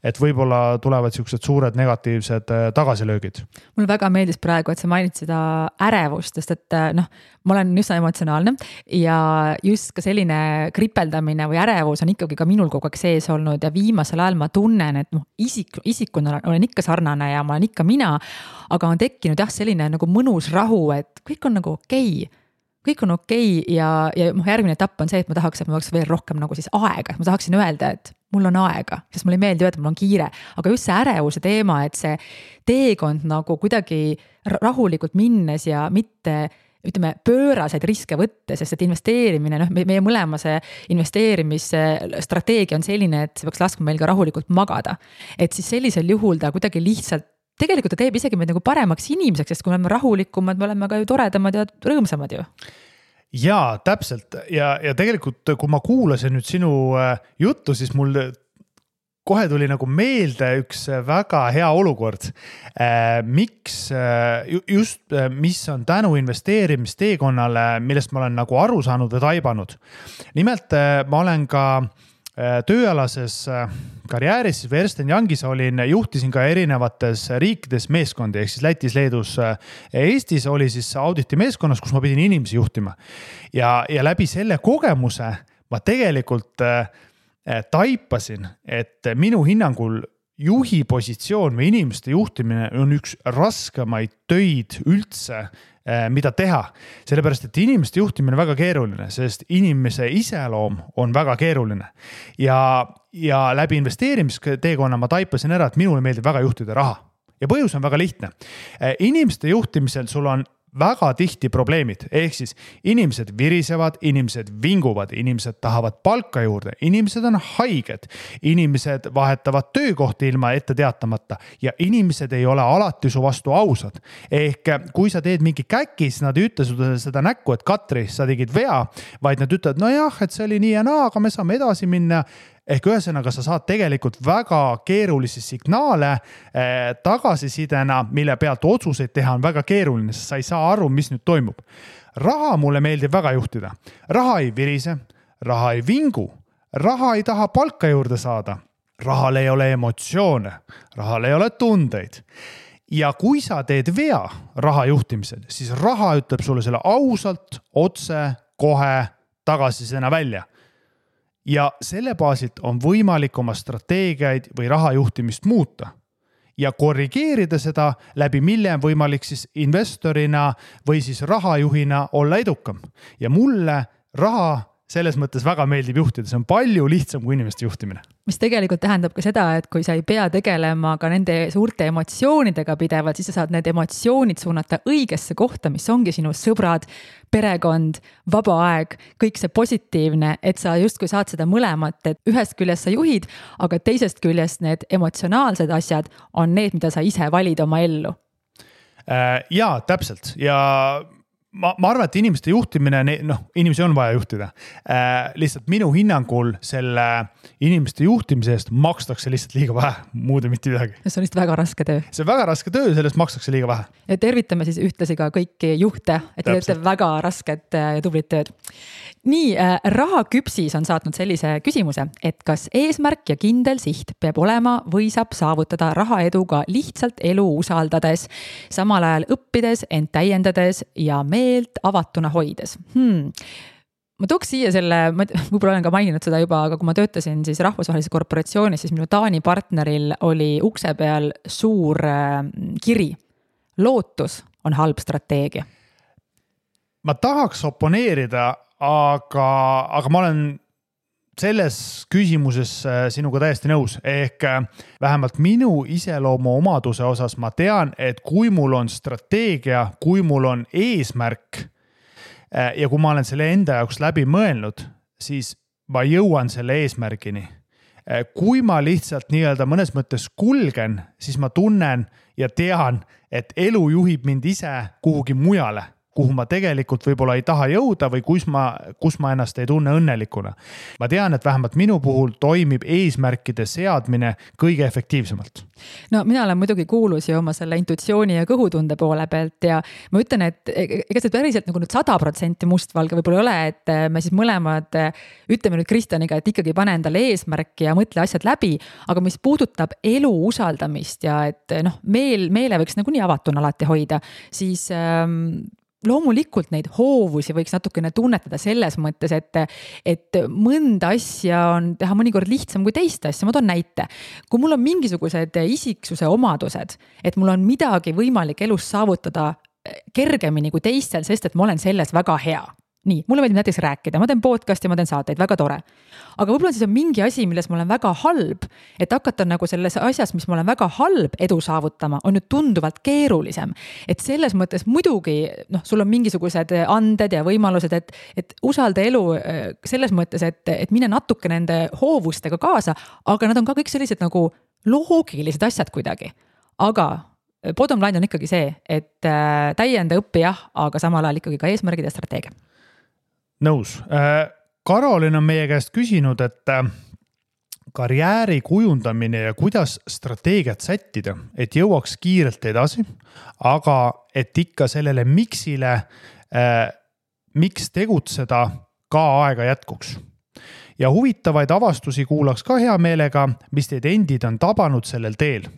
et võib-olla tulevad siuksed suured negatiivsed tagasilöögid. Mul väga meeldis praegu, et sa mainid seda ärevust, sest et ma olen üsna emotsionaalne ja just ka selline kripeldamine või ärevus on on ikkagi ka minul kogu aeg sees olnud ja viimasel ajal ma tunnen, et isikuna olen ikka sarnane ja ma olen ikka mina, aga on tekkinud selline nagu mõnus rahu, et kõik on nagu okei. Kõik on okei ja järgmine etapp on see, et ma tahaks veel rohkem nagu siis aega. Ma tahaksin öelda, et mul on aega, sest mulle ei meeldi öelda, et mul on kiire. Aga just see ärevuse teema, et see teekond nagu kuidagi rahulikult minnes ja mitte pööraseid riske võtte, sest et investeerimine, meie mõlema see investeerimisstrateegia on selline, et see peaks laskma meil ka rahulikult magada. Et siis sellisel juhul ta kuidagi lihtsalt tegelikult ta teeb isegi meid nagu paremaks inimeseks, sest kui me oleme rahulikumad, me oleme ka ju toredamad ja rõõmsamad ju. Jaa, täpselt. Ja tegelikult, kui ma kuulasin nüüd sinu juttu, siis mul kohe tuli nagu meelde üks väga hea olukord. Mis on tänu investeerimisteekonnale, millest ma olen nagu aru saanud või taibanud. Nimelt ma olen ka tööalases karjääris või Ernst & Youngis juhtisin ka erinevates riikides meeskondi, ehk siis Lätis, Leedus, Eestis oli siis auditi meeskonnas, kus ma pidin inimesi juhtima. Ja läbi selle kogemuse ma tegelikult taipasin, et minu hinnangul juhi positsioon või inimeste juhtimine on üks raskemaid töid üldse, mida teha. Sellepärast, et inimeste juhtimine on väga keeruline, sest inimese iseloom on väga keeruline. Ja läbi investeerimisteekonna ma taipasin ära, et minule meeldib väga juhtida raha. Ja põhjus on väga lihtne. Inimeste juhtimisel sul on väga tihti probleemid, ehk siis inimesed virisevad, inimesed vinguvad, inimesed tahavad palka juurde, inimesed on haiged, inimesed vahetavad töökohti ilma ette teatamata ja inimesed ei ole alati su vastu ausad. Ehk kui sa teed mingi käkis, nad ei ütle seda näkku, et Katri, sa tegid vea, vaid nad ütlevad, no jah, et see oli nii ja naa, aga me saame edasi minna. Ehk ühesõnaga sa saad tegelikult väga keerulisi signaale tagasisidena, mille pealt otsuseid teha on väga keeruline, sest sa ei saa aru, mis nüüd toimub. Raha mulle meeldib väga juhtida. Raha ei virise, raha ei vingu, raha ei taha palka juurde saada, rahal ei ole emotsioone, rahal ei ole tundeid. Ja kui sa teed vea raha juhtimisel, siis raha ütleb sulle selle ausalt, otse, kohe tagasisidena välja. Ja selle baasilt on võimalik oma strateegiaid või rahajuhtimist muuta ja korrigeerida seda, läbi mille on võimalik siis investorina või siis rahajuhina olla edukam. Ja mulle raha selles mõttes väga meeldib juhtida, see on palju lihtsam kui inimeste juhtimine. Mis tegelikult tähendab ka seda, et kui sa ei pea tegelema ka nende suurte emotsioonidega pidevalt, siis sa saad need emotsioonid suunata õigesse kohta, mis ongi sinu sõbrad, perekond, vaba aeg, kõik see positiivne, et sa justkui saad seda mõlemat, et ühest küljest sa juhid, aga teisest küljest need emotsionaalsed asjad on need, mida sa ise valid oma ellu. Jaa, täpselt. Ja ma arvan, et inimeste juhtimine, inimesi on vaja juhtida. Lihtsalt minu hinnangul selle inimeste juhtimise eest makstakse lihtsalt liiga vähe, muude mitte midagi. See on lihtsalt väga raske töö. See on väga raske töö, sellest makstakse liiga vähe. Ja tervitame siis ühtlasi ka kõiki juhte, et te teete väga rasket ja tublit tööd. Nii, Rahaküpsis on saatnud sellise küsimuse, et kas eesmärk ja kindel siht peab olema või saab saavutada rahaeduga lihtsalt elu usaldades, samal ajal õppides, ent täiendades ja meelt avatuna hoides. Ma tooks siia selle, ma võib-olla olen ka maininud seda juba, aga kui ma töötasin siis rahvusvahelises korporatsioonis, siis minu Taani partneril oli ukse peal suur kiri. Lootus on halb strateegia. Ma tahaks oponeerida, aga ma olen selles küsimuses sinuga täiesti nõus. Ehk vähemalt minu iseloomu omaduse osas ma tean, et kui mul on strateegia, kui mul on eesmärk ja kui ma olen selle enda jaoks läbi mõelnud, siis ma jõuan selle eesmärgini. Kui ma lihtsalt nii-öelda mõnes mõttes kulgen, siis ma tunnen ja tean, et elu juhib mind ise kuhugi mujale, kuhu ma tegelikult võib-olla ei taha jõuda või kus ma ennast ei tunne õnnelikuna. Ma tean, et vähemalt minu puhul toimib eesmärkide seadmine kõige efektiivsemalt. No mina olen muidugi kuulus ju oma selle intuitsiooni ja kõhutunde poole pealt ja ma ütlen, et ega see päriselt nagu nüüd 100% mustvalge võib-olla ei ole, et me siis mõlemad ütleme nüüd Kristjaniga, et ikkagi pane endale eesmärki ja mõtle asjad läbi, aga mis puudutab elu usaldamist ja et meele võiks nagu nii avatuna alati hoida, siis loomulikult neid hoovusi võiks natukene tunnetada selles mõttes, et mõnda asja on teha mõnikord lihtsam kui teist asja. Ma toon näite. Kui mul on mingisugused isiksuse omadused, et mul on midagi võimalik elus saavutada kergemini kui teistel, sest et ma olen selles väga hea. Nii, mulle meeldib näiteks rääkida, ma teen podcasti, ma teen saateid, väga tore. Aga võib-olla siis on mingi asi, milles ma olen väga halb, et hakata nagu selles asjas, mis ma olen väga halb edu saavutama, on nüüd tunduvalt keerulisem. Et selles mõttes muidugi, sul on mingisugused anded ja võimalused, et usalda elu selles mõttes, et mine natuke nende hoovustega kaasa, aga nad on ka kõik sellised nagu loogilised asjad kuidagi. Aga bottom line on ikkagi see, et täienda õppi jah, aga samal ajal ikkagi ka eesmärgid ja strateegia. Nõus. Karolin on meie käest küsinud, et karjääri kujundamine ja kuidas strateegiat sättida, et jõuaks kiirelt edasi, aga et ikka sellele miksile, miks tegutseda ka aega jätkuks. Ja huvitavaid avastusi kuulaks ka hea meelega, mis teid endid on tabanud sellel teel.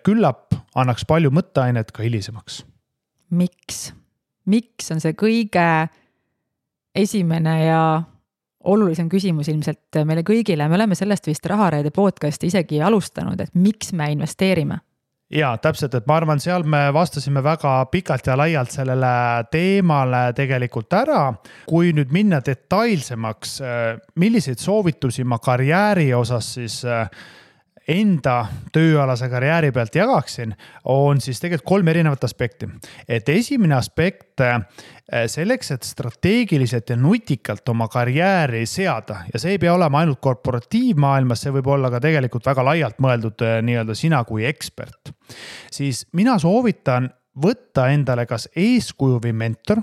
Küllap annaks palju mõtteainet ka hilisemaks. Miks on see kõige esimene ja olulisem küsimus ilmselt meile kõigile. Me oleme sellest vist Rahareede podcasti isegi alustanud, et miks me investeerime? Jaa, täpselt, et ma arvan, seal me vastasime väga pikalt ja laialt sellele teemale tegelikult ära. Kui nüüd minna detailsemaks, milliseid soovitusi ma karjääri osas siis enda tööalase karjääri pealt jagaksin, on siis tegelikult 3 erinevat aspekti. Et esimene aspekt selleks, et strateegiliselt ja nutikalt oma karjääri seada, ja see ei pea olema ainult korporatiivmaailmas, see võib olla ka tegelikult väga laialt mõeldud nii-öelda sina kui ekspert, siis mina soovitan võtta endale kas eeskuju või mentor,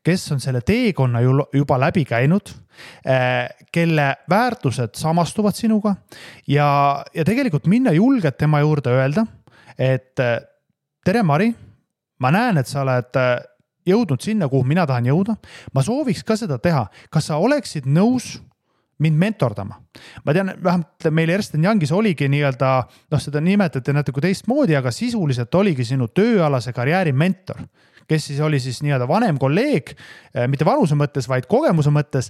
kes on selle teekonna juba läbi käinud, kelle väärtused samastuvad sinuga ja tegelikult minna julgelt tema juurde öelda, et tere Mari, ma näen, et sa oled jõudnud sinna, kuhu mina tahan jõuda. Ma sooviks ka seda teha. Kas sa oleksid nõus mind mentordama? Ma tean, vähemalt meil Ernst & Youngis oligi nii-öelda, seda nimetati natuke teistmoodi, aga sisuliselt oligi sinu tööalase karjääri mentor, kes siis oli siis nii-öelda vanem kolleeg, mitte vanuse mõttes, vaid kogemuse mõttes,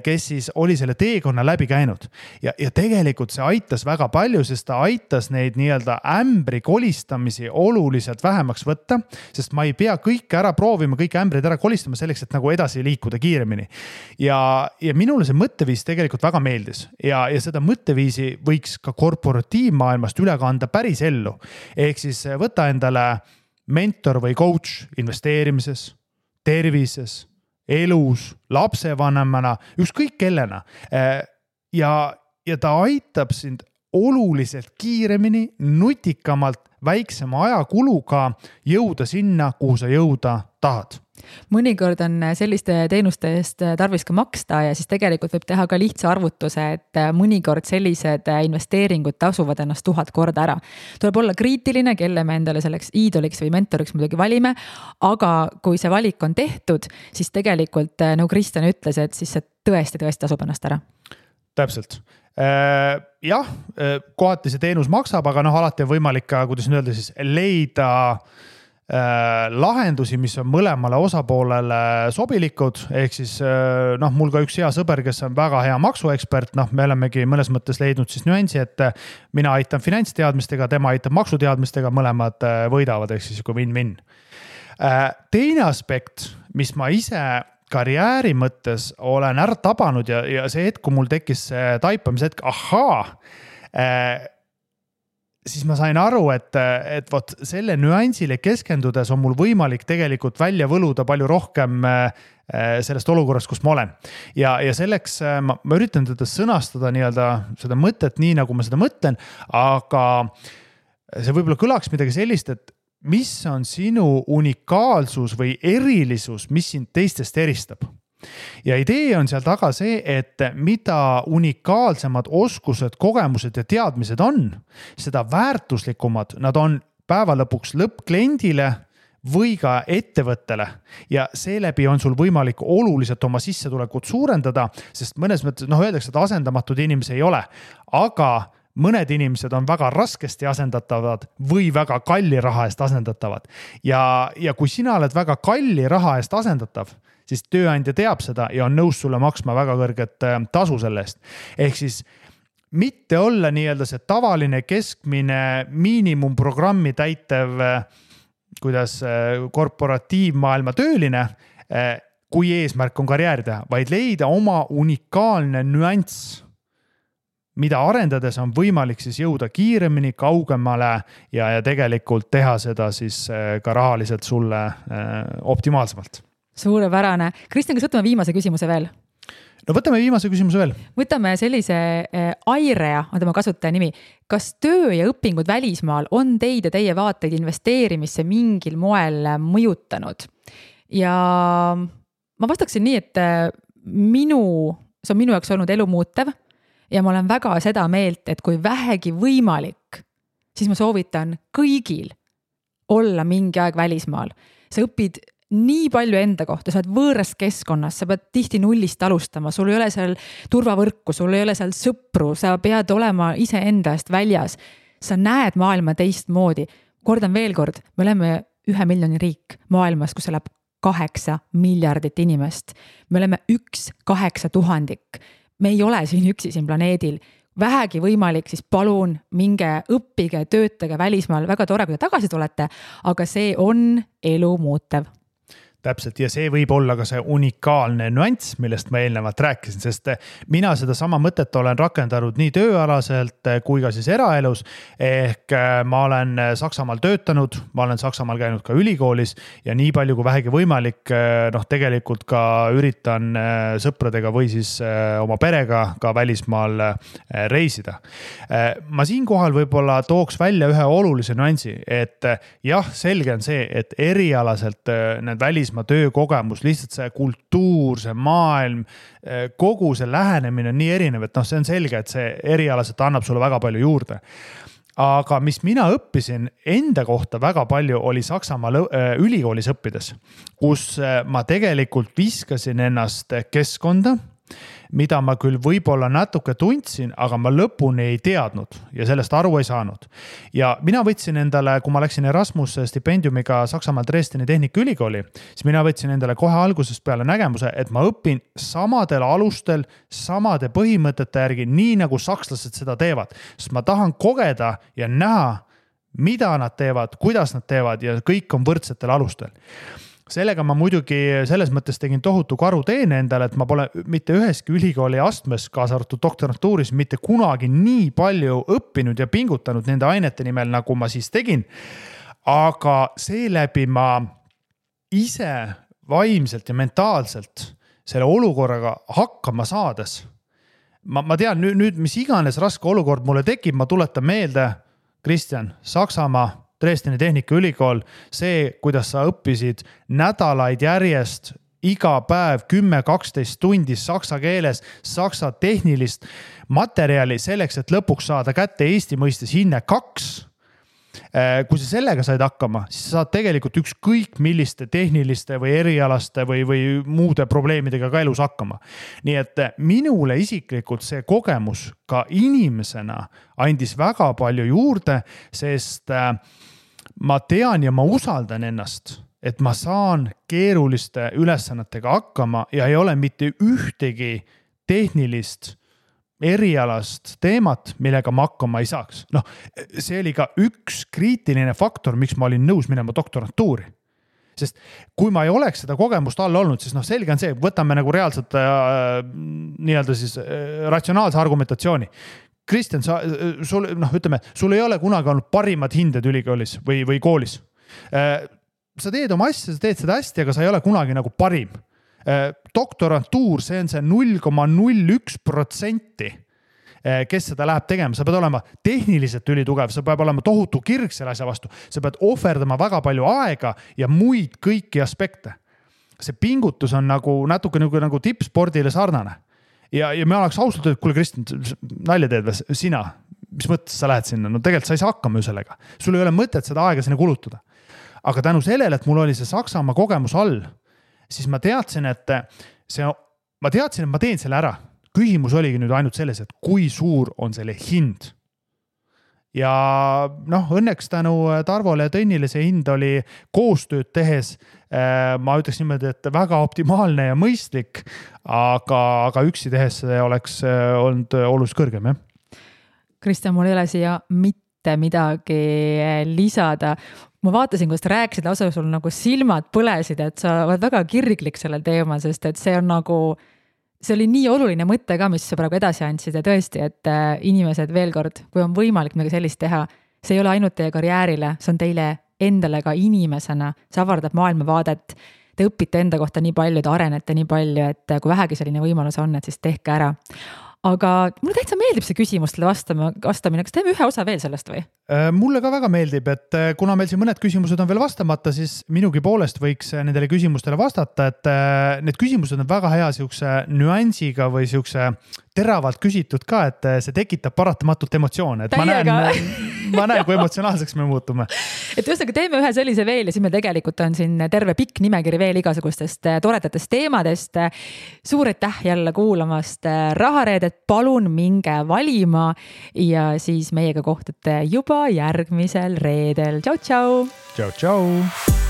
kes siis oli selle teekonna läbi käinud. Ja tegelikult see aitas väga palju, sest ta aitas neid nii-öelda ämbri kolistamisi oluliselt vähemaks võtta, sest ma ei pea kõike ära proovima, kõik ämbrid ära kolistama selleks, et nagu edasi liikuda kiiremini. Ja minule see mõtteviis tegelikult väga meeldis ja seda mõtteviisi võiks ka korporatiivmaailmast üle kanda päris ellu. Ehk siis võta endale mentor või coach investeerimises, tervises, elus, lapsevanemana, ükskõik kellena. Ja ta aitab sind oluliselt kiiremini, nutikamalt, väiksema ajakuluga jõuda sinna, kuhu sa jõuda tahad. Mõnikord on selliste teenuste eest tarvis ka maksta ja siis tegelikult võib teha ka lihtsa arvutuse, et mõnikord sellised investeeringud tasuvad ennast 1000 korda ära. Tuleb olla kriitiline, kelle me endale selleks iidoliks või mentoriks muidugi valime, aga kui see valik on tehtud, siis tegelikult, nagu Kristjan ütles, et siis see tõesti tasub ennast ära. Täpselt. Jah, kohati see teenus maksab, aga alati on võimalik ka, kuidas nüüd öelda, siis leida lahendusi, mis on mõlemale osapoolele sobilikud, ehk siis mul ka üks hea sõber, kes on väga hea maksuekspert, me olemegi mõnes mõttes leidnud siis nüansi, et mina aitan finantsteadmistega, tema aitab maksuteadmistega, mõlemad võidavad, ehk siis kui win-win. Teine aspekt, mis ma ise karjääri mõttes olen ära tabanud ja see hetk, kui mul tekkis taipamise hetk, siis ma sain aru, et võt selle nüansile keskendudes on mul võimalik tegelikult välja võluda palju rohkem sellest olukorrast, kus ma olen. Ja selleks ma üritan teda sõnastada nii-öelda seda mõtet nii, nagu ma seda mõtlen, aga see võib-olla kõlaks midagi sellist, et mis on sinu unikaalsus või erilisus, mis sind teistest eristab? Ja idee on seal taga see, et mida unikaalsemad oskused, kogemused ja teadmised on, seda väärtuslikumad nad on päeva lõpuks lõppkliendile või ka ettevõttele ja seeläbi on sul võimalik oluliselt oma sissetulekut suurendada, sest mõnes mõttes, öeldakse, et asendamatud inimesi ei ole, aga mõned inimesed on väga raskesti asendatavad või väga kalli raha eest asendatavad. Ja kui sina oled väga kalli raha eest asendatav, siis tööandja teab seda ja on nõus sulle maksma väga kõrget tasu selle eest. Ehk siis mitte olla nii-öelda see tavaline keskmine miinimumprogrammi täitev, kuidas korporatiivmaailma tööline, kui eesmärk on karjääri teha, vaid leida oma unikaalne nüanss, mida arendades on võimalik siis jõuda kiiremini, kaugemale ja tegelikult teha seda siis ka rahaliselt sulle optimaalsemalt. Suurepärane. Kristjan, kas võtame viimase küsimuse veel? No võtame viimase küsimuse veel. Võtame sellise Airea, on tema kasutaja nimi. Kas töö ja õpingud välismaal on teid ja teie vaateid investeerimisse mingil moel mõjutanud? Ja ma vastaksin nii, et see on minu jaoks olnud elu muutev ja ma olen väga seda meelt, et kui vähegi võimalik, siis ma soovitan kõigil olla mingi aeg välismaal. Sa õpid nii palju enda kohta, sa oled võõras keskkonnas, sa pead tihti nullist alustama, sul ei ole seal turvavõrku, sul ei ole seal sõpru, sa pead olema ise enda eest väljas. Sa näed maailma teistmoodi. Kordan veel kord, me oleme 1 miljoni riik maailmas, kus elab 8 miljardit inimest. Me oleme 1/8000. Me ei ole siin üksi siin planeedil. Vähegi võimalik, siis palun minge õppige, töötage välismaal. Väga tore, kui te tagasi tulete, aga see on elu muutev. Täpselt, ja see võib olla ka see unikaalne nüanss, millest ma eelnevalt rääkisin, sest mina seda sama mõtet olen rakendanud nii tööalaselt kui ka siis eraelus. Ehk ma olen Saksamaal töötanud, ma olen Saksamaal käinud ka ülikoolis ja nii palju kui vähegi võimalik, tegelikult ka üritan sõpradega või siis oma perega ka välismaal reisida. Ma siinkohal võib-olla tooks välja ühe olulise nüansi, et jah, selge on see, et erialaselt need välismaa töökogemus, lihtsalt see kultuur, see maailm, kogu see lähenemine on nii erinev, et see on selge, et see erialaselt annab sulle väga palju juurde. Aga mis mina õppisin enda kohta väga palju oli Saksamaa ülikoolis õppides, kus ma tegelikult viskasin ennast keskkonda, mida ma küll võib-olla natuke tundsin, aga ma lõpuni ei teadnud ja sellest aru ei saanud. Ja mina võtsin endale, kui ma läksin Erasmus stipendiumiga Saksamaal Dresdeni Tehnikaülikooli, siis mina võtsin endale kohe algusest peale nägemuse, et ma õpin samadel alustel, samade põhimõtete järgi, nii nagu sakslased seda teevad. Sest ma tahan kogeda ja näha, mida nad teevad, kuidas nad teevad ja kõik on võrdsetel alustel. Sellega ma muidugi selles mõttes tegin tohutu karuteene endale, et ma pole mitte üheski ülikooli astmes, kaasa arvatud doktorantuuris, mitte kunagi nii palju õppinud ja pingutanud nende ainete nimel, nagu ma siis tegin. Aga seeläbi ma ise vaimselt ja mentaalselt selle olukorraga hakkama saades. Ma tean nüüd, mis iganes raske olukord mulle tekib, ma tuletan meelde, Kristjan, Saksamaa, Dresdeni Tehnikaülikool, see, kuidas sa õppisid nädalaid järjest, iga päev 10-12 tundi saksa keeles, saksa tehnilist materjali selleks, et lõpuks saada kätte Eesti mõistes hinne 2. Kui sa sellega said hakkama, siis sa saad tegelikult ükskõik milliste tehniliste või erialaste või muude probleemidega ka elus hakkama. Nii et minule isiklikult see kogemus ka inimesena andis väga palju juurde, sest ma tean ja ma usaldan ennast, et ma saan keeruliste ülesannetega hakkama ja ei ole mitte ühtegi tehnilist erialast teemat, millega ma hakkama ei saaks. See oli ka üks kriitiline faktor, miks ma olin nõus minema doktorantuuri. Sest kui ma ei oleks seda kogemust all olnud, siis selge on see, võtame nagu reaalselt nii-öelda siis ratsionaalse argumentatsiooni. Kristjan, sul ei ole kunagi olnud parimad hinded ülikoolis või koolis. Sa teed oma asja, sa teed seda hästi, aga sa ei ole kunagi nagu parim. Doktorantuur, see on see 0,01%, kes seda läheb tegema. Sa pead olema tehniliselt ülitugev, sa pead olema tohutu kirg selle asja vastu. Sa pead ohverdama väga palju aega ja muid kõiki aspekte. See pingutus on natuke nagu tippspordile sarnane. Ja me oleks ausalt, et kuule Kristjan, nalja teed või sina, mis mõttes sa lähed sinna? Tegelikult sa ei saa hakkama ju sellega. Sul ei ole mõtet seda aega sinna kulutada. Aga tänu sellele, et mul oli see Saksamaa kogemus all, siis ma teadsin, et ma teen selle ära. Küsimus oligi nüüd ainult selles, et kui suur on selle hind. ja noh, õnneks tänu Tarvole ja Tõnnile see hind oli koostööd tehes, ma ütleks niimoodi, et väga optimaalne ja mõistlik, aga üksi tehes see oleks olnud oluliselt kõrgem, jah. Kristjan, mul ei ole siia mitte midagi lisada. Ma vaatasin, kuidas rääkisid, lausa sul nagu silmad põlesid, et sa oled väga kirglik sellel teemal, sest et see on nagu, see oli nii oluline mõte ka, mis sa praegu edasi andsid ja tõesti, et inimesed veel kord, kui on võimalik midagi sellist teha, see ei ole ainult teie karjäärile, see on teile endale ka inimesena, see avardab maailmavaadet, te õpite enda kohta nii palju, te arenete nii palju, et kui vähegi selline võimalus on, et siis tehke ära. Aga mulle täitsa meeldib see küsimustele vastamine, kas teeme ühe osa veel sellest või? Mulle ka väga meeldib, et kuna meil siin mõned küsimused on veel vastamata, siis minugi poolest võiks nendele küsimustele vastata, et need küsimused on väga hea siukse nüansiga või siukse teravalt küsitud ka, et see tekitab paratamatult emotsioone, et ma näen, kui emotsionaalseks me muutume. Et ühesõnaga teeme ühe sellise veel ja siis meil tegelikult on siin terve pikk nimekiri veel igasugustest toredatest teemadest. Suur aitäh jälle kuulamast Rahareedet, palun minge valima ja siis meiega kohtute juba järgmisel reedel. Tšau, tšau! Tšau, tšau!